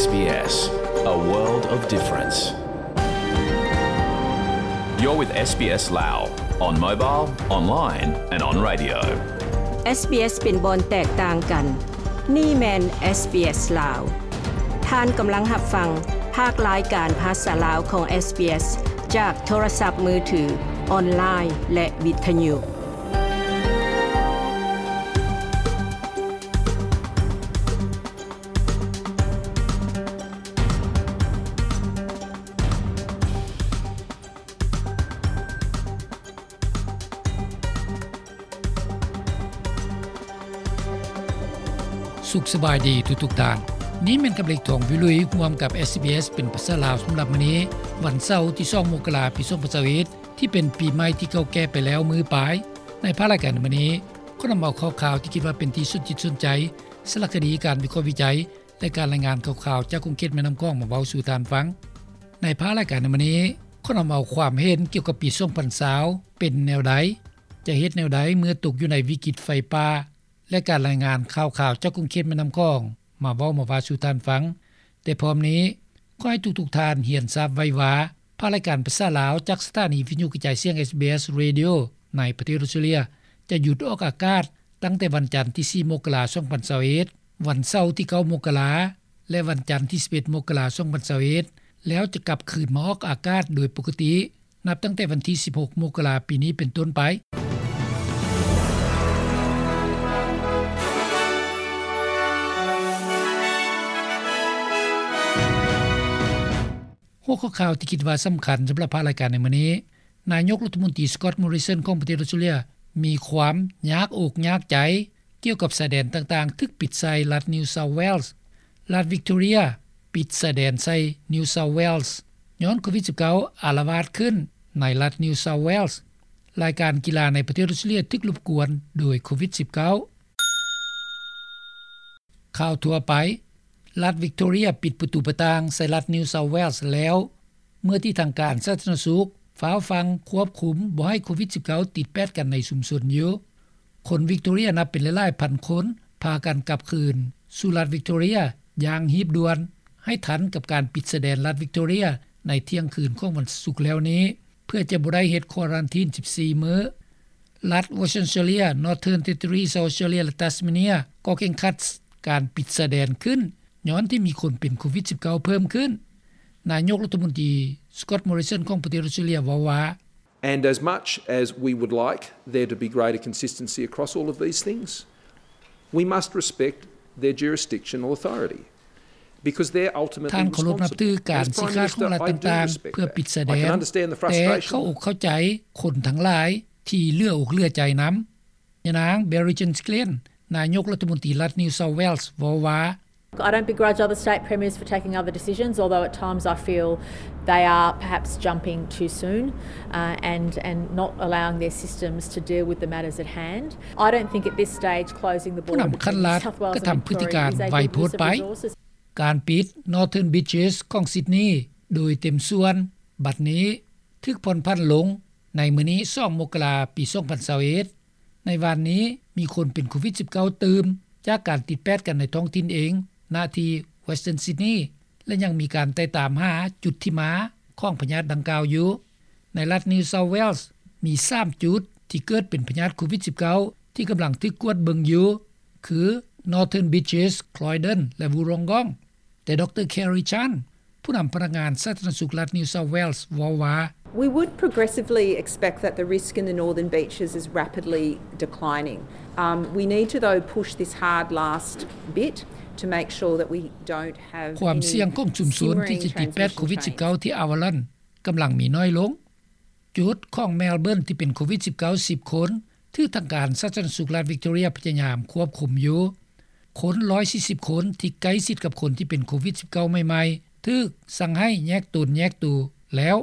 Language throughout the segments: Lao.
SBS, a world of difference. You're with SBS Lao, on mobile, online and on radio. SBS ເປັນບ່ອນແຕກຕ່າງກັນ. ນີ້ແມ່ນ SBS ລາວ. ທ່ານກຳລັງຮັບຟັງພາກລາຍການພາສາລາວຂອງ SBS ຈາກໂທລະສັບມືຖື, ອອນລາຍ ແລະ ວິທະຍຸ. ສຸກສະບາຍດີທຸກໆທ່ານ. ນີ້ແມ່ນກັບເລັກ ທອງວິລຸຍ ຮ່ວມກັບ SBS ເປັນພາສາລາວສຳລັບມື້ນີ້, ວັນເສົາ ທີສອງ ມົກກະລາ ປີສອງພັນຊາວເອັດ ທີ່ເປັນປີໃໝ່ທີ່ເກົ່າແກ່ໄປແລ້ວມື້ປາຍ. ໃນພາກລາຍການໃນມື້ນີ້, ຂໍນຳເອົາຂ່າວຄາວທີ່ຄິດວ່າເປັນທີ່ສົນຈິດສົນໃຈ, ສາລະຄະດີ, ການວິເຄາະວິໄຈ ແລະ ການລາຍງານຂ່າວໆຈາກຂົງເຂດແມ່ນ້ຳຂອງມາເວົ້າສູ່ທ່ານຟັງ. ໃນພາກລາຍການໃນມື້ນີ້, ຂໍນຳເອົາຄວາມເຫັນກ່ຽວກັບປີສອງພັນຊາວເປັນແນວໃດ, ຈະເຮັດແນວໃດເມື່ອຕົກຢູ່ໃນວິກິດໄຟປ່າ ແລະ ການລາຍງານຂ່າວໆຈາກຂົງເຂດແມ່ນ້ຳຂອງມາເວົ້າມາວ່າສູ່ທ່ານຟັງ. ແຕ່ພ້ອມນີ້, ຂໍໃຫ້ທຸກໆທ່ານຮຽນຊາບໄວ້ວ່າ, ພາກລາຍການພາສາລາວຈາກສະຖານີວິທະຍຸກະຈາຍສຽງ SBS Radio ໃນປະເທດອອສເຕຣເລຍ ຈະຢຸດອອກອາກາດຕັ້ງແຕ່ວັນຈັນທີສີ່ ມົກກະລາ ສອງພັນຊາວເອັດ, ວັນເສົາທີເກົ້າ ມົກກະລາ ແລະ ວັນຈັນທີສິບເອັດ ມົກກະລາ ສອງພັນຊາວເອັດ ແລ້ວຈະກັບຄືນມາອອກອາກາດໂດຍປົກກະຕິ ນັບຕັ້ງແຕ່ວັນທີສິບຫົກ ມົກກະລາ ປີນີ້ເປັນຕົ້ນໄປ. ຫົວຂໍ້ຂ່າວທີ່ຄິດວ່າສຳຄັນສຳລັບພາກລາຍການໃນມື້ນີ້, ນາຍົກລັດຖະມົນຕີ Scott Morrison ຂອງປະເທດອອສເຕຣເລຍ ມີຄວາມຍາກອົກຍາກໃຈກ່ຽວກັບຊາຍແດນຕ່າງໆຖືກປິດໃສ່ລັດ New South Wales. ລັດ Victoria ປິດຊາຍແດນໃສ່ New South Wales ຍ້ອນໂຄວິດສິບເກົ້າ ອາລະວາດຂຶ້ນໃນລັດ New South Wales. ລາຍການກິລາໃນປະເທດອອສເຕຣເລຍຖືກລົບກວນໂດຍໂຄວິດສິບເກົ້າ. ຂ່າວທົ່ວໄປ, ລັດ Victoria ປິດປະຕູປະຕ່າງໃສ່ລັດ New South Wales ແລ້ວ ເມື່ອທີ່ທາງການສາທາລະນະສຸກຟ້າວຟັ່ງຄວບຄຸມບໍ່ໃຫ້ໂຄວິດສິບເກົ້າຕິດແປດກັນໃນຊຸມຊົນຢູ່. ຄົນ Victoria ນັບເປັນຫຼາຍໆພັນຄົນພາກັນກັບຄືນສູ່ລັດ Victoria ຢ່າງຮີບດ່ວນ ໃຫ້ທັນກັບການປິດຊາຍແດນລັດ Victoria ໃນທ່ຽງຄືນຂອງວັນສຸກແລ້ວນີ້ ເພື່ອຈະບໍ່ໄດ້ເຮັດຄວາຣັນທີນສິບສີ່ມື້. ລັດ Western Australia, Northern Territory, South Australia ແລະ Tasmania ກໍເຄັ່ງຄັດການປິດຊາຍແດນຂຶ້ນ ຍ້ອນທີ່ມີຄົນເປັນໂຄວິດສິບເກົ້າເພີ່ມຂຶ້ນ. ນາຍົກລັດຖະມົນຕີ Scott Morrison ຂອງປະເທດອອສເຕຣເລຍເວົ້າວ່າ, And as much as we would like there to be greater consistency across all of these things, we must respect their jurisdictional authority. ທ່ານເຄົາລົບນັບຖືການຊີ້ຂາດຂອງລັດຕ່າງໆເພື່ອປິດຊາຍແດນ, ແຕ່ເຂົ້າອົກເຂົ້າໃຈຄົນທັງຫຼາຍທີ່ເຫຼືອອົກເຫຼືອໃຈນຳ. ຍານາງ Berejiklian, ນາຍົກລັດຖະມົນຕີລັດ New South Wales ເວົ້າວ່າ, I don't begrudge other state premiers for taking other decisions, although at times I feel they are perhaps jumping too soon, uh, and, and not allowing their systems to deal with the matters at hand. I don't think at this stage closing the border between New South Wales and Victoria is a good use of resources. ຜູ້ນຳຂັ້ນລັດກະທຳພຶດຕິການໄວໂພດໄປ. ການປິດ Northern Beaches ຂອງ Sydney ໂດຍເຕັມສ່ວນ ບັດນີ້ຖືກຜ່ອນຜັນລົງໃນມື້ນີ້ ສອງ ມົກກະລາ ປີສອງພັນຊາວເອັດ. ໃນວານນີ້ມີຄົນເປັນໂຄວິດສິບເກົ້າຕື່ມ ຈາກການຕິດແປດກັນໃນທ້ອງຖິ່ນເອງ ນະທີ່ Western Sydney ແລະ ຍັງມີການໄຕ່ຕາມຫາຈຸດທີ່ມາຂອງພະຍາດດັ່ງກ່າວຢູ່. ໃນລັດ New South Wales ມີສາມຈຸດທີ່ເກີດເປັນພະຍາດໂຄວິດສິບເກົ້າ ທີ່ກຳລັງຖືກກວດເບິ່ງຢູ່ ຄື Northern Beaches, Croydon ແລະ Wollongong. ແຕ່ ດຣ. Kerry Chant ຜູ້ນຳພະນັກງານສາທາລະນະສຸກລັດ New South Wales ເວົ້າວ່າ, We would progressively expect that the risk in the Northern Beaches is rapidly declining. Um, we need to, though, push this hard last bit to make sure that we don't have any simmering transmission chains. ຄວາມສ່ຽງຂອງຊຸມຊົນທີ່ຈະຕິດແປດໂຄວິດສິບເກົ້າທີ່ Avalon ກຳລັງມີໜ້ອຍລົງ. ຈຸດຂອງ Melbourne ທີ່ເປັນໂຄວິດສິບເກົ້າ ສິບຄົນ ຖືກທາງການສາທາລະນະສຸກລັດ Victoria ພະຍາຍາມຄວບຄຸມຢູ່. ຄົນ ໜຶ່ງຮ້ອຍສີ່ສິບຄົນ ທີ່ໃກ້ຊິດກັບຄົນທີ່ເປັນໂຄວິດສິບເກົ້າ ໃໝ່ໆ ຖືກສັ່ງໃຫ້ແຍກຕົນແຍກໂຕແລ້ວ.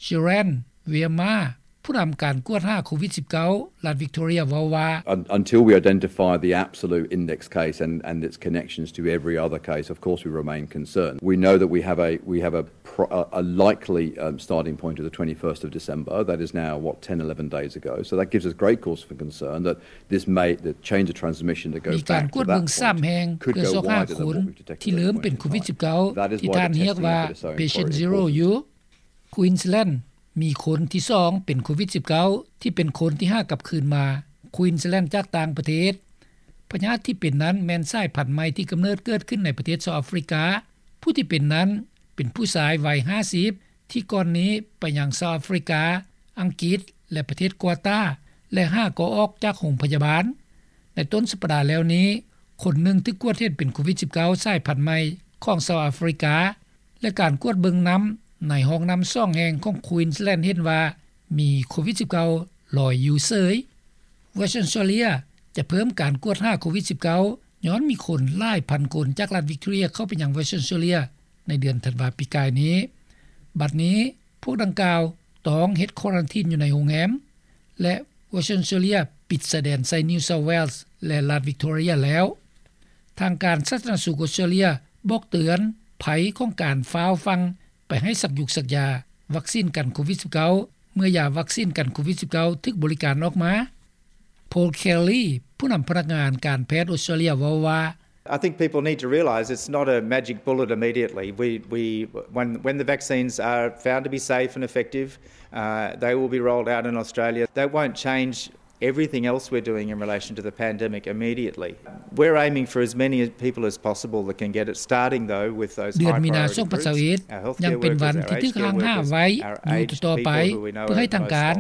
Shiran Virmar, ຜູ້ນຳການກວດຫາໂຄວິດ-19 ລັດວິກໂຕເຣຍເວົ້າວ່າ Un- Until we identify the absolute index case and, and its connections to every other case, of course we remain concerned. We know that we have a, we have a, pro- a, a likely, um, starting point of the twenty-first of December. That is now, what, ten, eleven days ago. So that gives us great cause for concern that this may, the change of transmission that goes back to that point could go wider than what we've detected at this point in time. That is why the testing effort is so encouraging. ມີການກວດເບິ່ງຊ້ຳແຮງເພື່ອຊອກຫາຄົນທີ່ເລີ່ມເປັນໂຄວິດ-19 ທີ່ທ່ານຮຽກວ່າ Patient Zero ຢູ່ Queensland ມີຄົນທີສອງເປັນໂຄວິດ-19 ທີ່ເປັນຄົນທີຫ້າກັບຄືນມາ Queensland ຈາກຕ່າງປະເທດ. ພະຍາດທີ່ເປັນນັ້ນແມ່ນສາຍພັນໃໝ່ທີ່ກຳເນີດເກີດຂຶ້ນໃນປະເທດເຊົາອາຟຣິກາ. ຜູ້ທີ່ເປັນນັ້ນເປັນຜູ້ຊາຍໄວຫ້າສິບ ທີ່ກ່ອນນີ້ໄປຍັງເຊົາອາຟຣິກາ, ອັງກິດ ແລະ ປະເທດກວາຕາ ແລະ ຫາກໍອອກຈາກໂຮງພະຍາບານ. ໃນຕົ້ນສັບປະດາແລ້ວນີ້, ຄົນໜຶ່ງຖືກກວດເຫັນເປັນໂຄວິດ-19 ສາຍພັນໃໝ່ຂອງເຊົາອາຟຣິກາ ແລະ ການກວດເບິ່ງນ້ຳໃນຫ້ອງນ້ຳສອງແຫ່ງຂອງ Queensland ເຫັນວ່າມີໂຄວິດ-19 ລອຍຢູ່ເສີຍ. Western Australia ຈະເພີ່ມການກວດຫາໂຄວິດ-19 ຍ້ອນມີຄົນຫຼາຍພັນຄົນຈາກລັດ Victoria ເຂົ້າໄປຍັງ Western Australia ໃນເດືອນທັນວາປີກາຍນີ້. ບັດນີ້ພວກດັ່ງກ່າວຕ້ອງເຮັດຄວາຣັນທີນຢູ່ໃນໂຮງແຮມ ແລະ Western Australia ປິດຊາຍແດນໃສ່ New South Wales ແລະ ລັດ Victoria ແລ້ວ. ທາງການສາທາລະນະສຸກອອສເຕຣເລັຽບອກເຕືອນໄພຂອງການຟ້າວຟັ່ງໄປໃຫ້ສັກຢູກສັກຢາວັກຊີນກັນໂຄວິດ-19 ເມື່ອຢາວັກຊີນກັນໂຄວິດ-19 ຖືກບໍລິການອອກມາ. Paul Kelly ຜູ້ນຳພະນັກງານການແພດອອສເຕຣເລັຽເວົ້າວ່າ I think people need to realise it's not a magic bullet immediately. We, we, when, when the vaccines are found to be safe and effective, uh, they will be rolled out in Australia. That won't change everything else we're doing in relation to the pandemic immediately. We're aiming for as many people as possible that can get it, starting though with those high priority groups, our healthcare workers, our aged care workers, our aged people who we know are most vulnerable. ເດືອນມີນາ ສອງພັນຊາວເອັດ ຍັງເປັນວັນທີ່ຖືກຮ່າງຫ້າມໄວ້ຢູ່ຕໍ່ໄປ ເພື່ອໃຫ້ທາງການ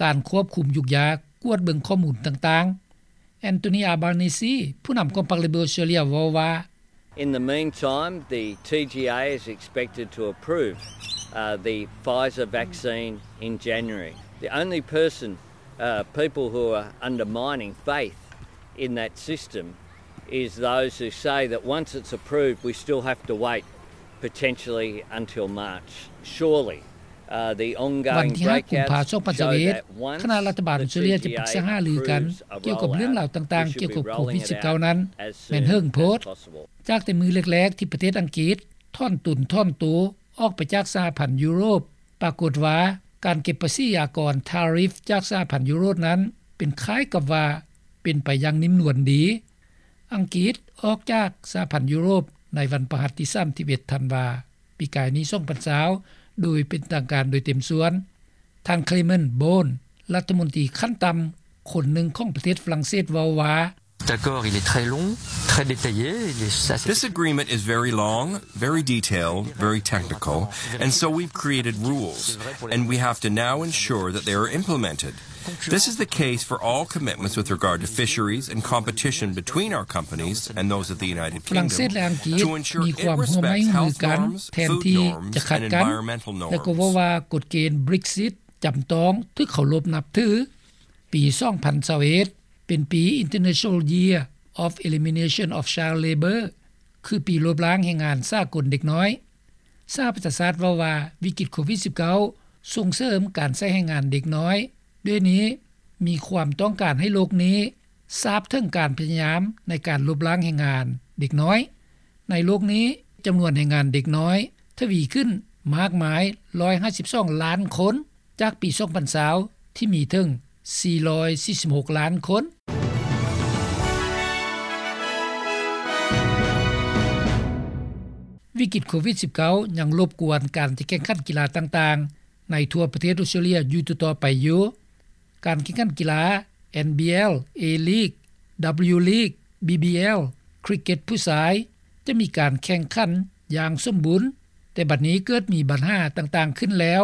ການຄວບຄຸມຍຸກຍາກວດເບິ່ງຂໍ້ມູນຕ່າງໆ. Anthony Albanese ຜູ້ນຳຂອງພັກ Labor ເວົ້າວ່າ In the meantime, the T G A is expected to approve, uh, the Pfizer vaccine in January. The only person, uh, people who are undermining faith in that system is those who say that once it's approved, we still have to wait potentially until March. Surely, uh, the ongoing breakouts show that once the T G A approves a rollout, we should be rolling it out as soon as possible. ວັນທີຫ້າ ກຸມພາ ສອງພັນຊາວເອັດ ຄະນະລັດຖະບານອອສເຕຣເລັຽຈະປຶກສາຫາລືກັນກ່ຽວກັບເລື່ອງລາວຕ່າງໆກ່ຽວກັບໂຄວິດ-19 ນັ້ນແມ່ນເຫິງໂພດ. ຈາກແຕ່ມື້ແລກໆທີ່ປະເທດອັງກິດຖອນຕົນຖອນໂຕອອກໄປຈາກສະຫະພັນຢູໂຣບ, ປາກົດວ່າການເກັບພາສີອາກອນ tariff ຈາກສະຫະພັນຢູໂຣບນັ້ນເປັນຄ້າຍກັບວ່າເປັນໄປຢ່າງນິ້ມນວນດີ. ອັງກິດອອກຈາກສະຫະພັນຢູໂຣບໃນວັນພະຫັດທີສາມສິບເອັດ ທັນວາ ປີກາຍນີ້ ສອງພັນຊາວ ໂດຍເປັນທາງການໂດຍເຕັມສ່ວນ. ທ່ານ Clement Beaune ລັດຖະມົນຕີຂັ້ນຕ່ຳຄົນໜຶ່ງຂອງປະເທດຝຣັ່ງເສດເວົ້າວ່າ L'accord, il est très long, très détaillé, il est assez... This agreement is very long, very detailed, very technical, and so we've created rules, and we have to now ensure that they are implemented. This is the case for all commitments with regard to fisheries and competition between our companies and those of the United Kingdom to ensure it respects health norms, food norms, and environmental norms. ຝຣັ່ງເສດ ແລະ ອັງກິດມີຄວາມຮ່ວມມືກັນແທນທີ່ຈະຂັດກັນ ແລະ ກໍເວົ້າວ່າກົດເກນ Brexit ຈຳຕ້ອງຖືກເຄົາລົບນັບຖື. ປີສອງພັນຊາວເອັດ ເປັນປີ International Year of Elimination of Child Labour ຄືປີລົບລ້າງແຮງງານສາກົນເດັກນ້ອຍ. ສະຫະປະຊາຊາດເວົ້າວ່າ ວິກິດໂຄວິດ-19 ສົ່ງເສີມການໃຊ້ແຮງງານເດັກນ້ອຍ. ດ້ວຍນີ້ມີຄວາມຕ້ອງການໃຫ້ໂລກນີ້ຊາບເຖິງການພະຍາຍາມໃນການລົບລ້າງແຮງງານເດັກນ້ອຍ. ໃນໂລກນີ້ ຈຳນວນແຮງງານເດັກນ້ອຍທະວີຂຶ້ນມາກມາຍ ຮ້ອຍຫ້າສິບສອງລ້ານຄົນ ຈາກປີສອງພັນຊາວ ທີ່ມີເຖິງສີ່ຮ້ອຍສີ່ສິບຫົກລ້ານຄົນ. ວິກິດໂຄວິດ-19 ຍັງລົບກວນການຈະແຂ່ງຂັນກິລາຕ່າງໆໃນທົ່ວປະເທດອອສເຕຣເລັຽຢູ່ຕໍ່ໆໄປຢູ່. ການແຂ່ງຂັນກິລາ NBL, A-League, W-League, BBL, ຄຣິກເກັດຜູ້ຊາຍ ຈະມີການແຂ່ງຂັນຢ່າງສົມບູນ, ແຕ່ບັດນີ້ເກີດມີບັນຫາຕ່າງໆຂຶ້ນແລ້ວ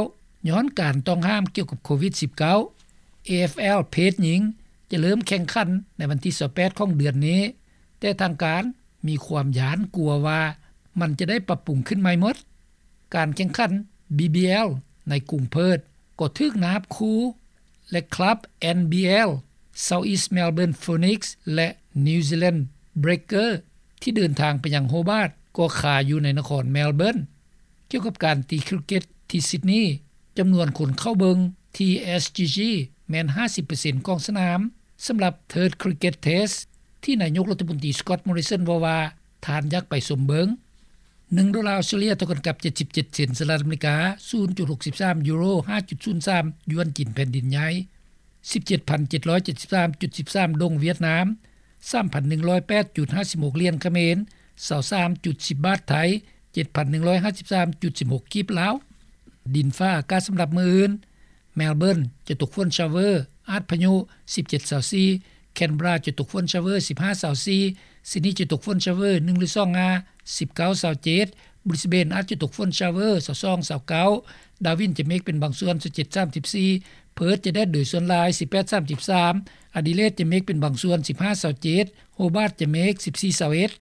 ຍ້ອນການຕ້ອງຫ້າມກ່ຽວກັບໂຄວິດ-19. AFL ເພດຍິງຈະເລີ່ມແຂ່ງຂັນໃນວັນທີຊາວແປດຂອງເດືອນນີ້, ແຕ່ທາງການມີຄວາມຢ້ານກົວວ່າມັນຈະໄດ້ປັບປຸງຂຶ້ນໃໝ່ໝົດ. ການແຂ່ງຂັນ BBL ໃນກຸງເພີດກໍຖືກນາບຂູ່ ແລະ ຄລັບ NBL South East Melbourne Phoenix ແລະ New Zealand Breakers ທີ່ເດີນທາງໄປຍັງໂຮບາດກໍຄາຢູ່ໃນນະຄອນ Melbourne. ກ່ຽວກັບການຕີຄຣິກເກັດທີ່ Sydney ຈຳນວນຄົນເຂົ້າເບິ່ງ ທີ່ SCG ແມ່ນ ຫ້າສິບເປີເຊັນຂອງສະໜາມ ສຳລັບ Third Cricket Test ທີ່ນາຍົກລັດຖະມົນຕີ Scott Morrison ເວົ້າວ່າ ທ່ານຢາກໄປຊົມເບິ່ງ. ໜຶ່ງໂດລາອອສເຕຣເລັຽ ເທົ່າກັນກັບ ເຈັດສິບເຈັດເຊັນ ສະຫະລັດອາເມລິກາ ສູນຈຸດຫົກສິບສາມຢູໂຣ ຫ້າຈຸດສູນສາມຢວນຈີນແຜ່ນດິນໃຫຍ່ ສິບເຈັດພັນເຈັດຮ້ອຍເຈັດສິບສາມຈຸດສິບສາມດົງຫວຽດນາມ ສາມພັນໜຶ່ງຮ້ອຍແປດຈຸດຫ້າສິບຫົກຫຼຽນຂະເໝນ ຊາວສາມຈຸດສິບບາດໄທ ເຈັດພັນໜຶ່ງຮ້ອຍຫ້າສິບສາມຈຸດສິບຫົກກີບລາວ. ດິນຟ້າອາກາດສຳລັບມື້ອື່ນ: ແມລເບີນ ຈະຕົກຝົນຊາວເວີ ອາດພາຍຸ ສິບເຈັດ ຊາວສີ່, ແຄນເບີຣາ ຈະຕົກຝົນຊາວເວີ ສິບຫ້າ ຊາວສີ່, ຊິດນີ ຈະຕົກຝົນຊາວເວີ ໜຶ່ງ ຫຼື ສອງ ງາ ສິບເກົ້າ ຊາວເຈັດ, ບຣິສເບນ ອາດຈະຕົກຝົນຊາວເວີ ຊາວສອງ ຊາວເກົ້າ, ດາວິນ ຈະເມກເປັນບາງສ່ວນ ຊາວເຈັດ ສາມສິບສີ່, ເພີດ ຈະແດດໂດຍສ່ວນຫຼາຍ ສິບແປດ ສາມສິບສາມ, ອາດີເລດ ຈະເມກເປັນບາງສ່ວນ ສິບຫ້າ ຊາວເຈັດ, ໂຮບາດ ຈະເມກ ສິບສີ່ ຊາວເອັດ.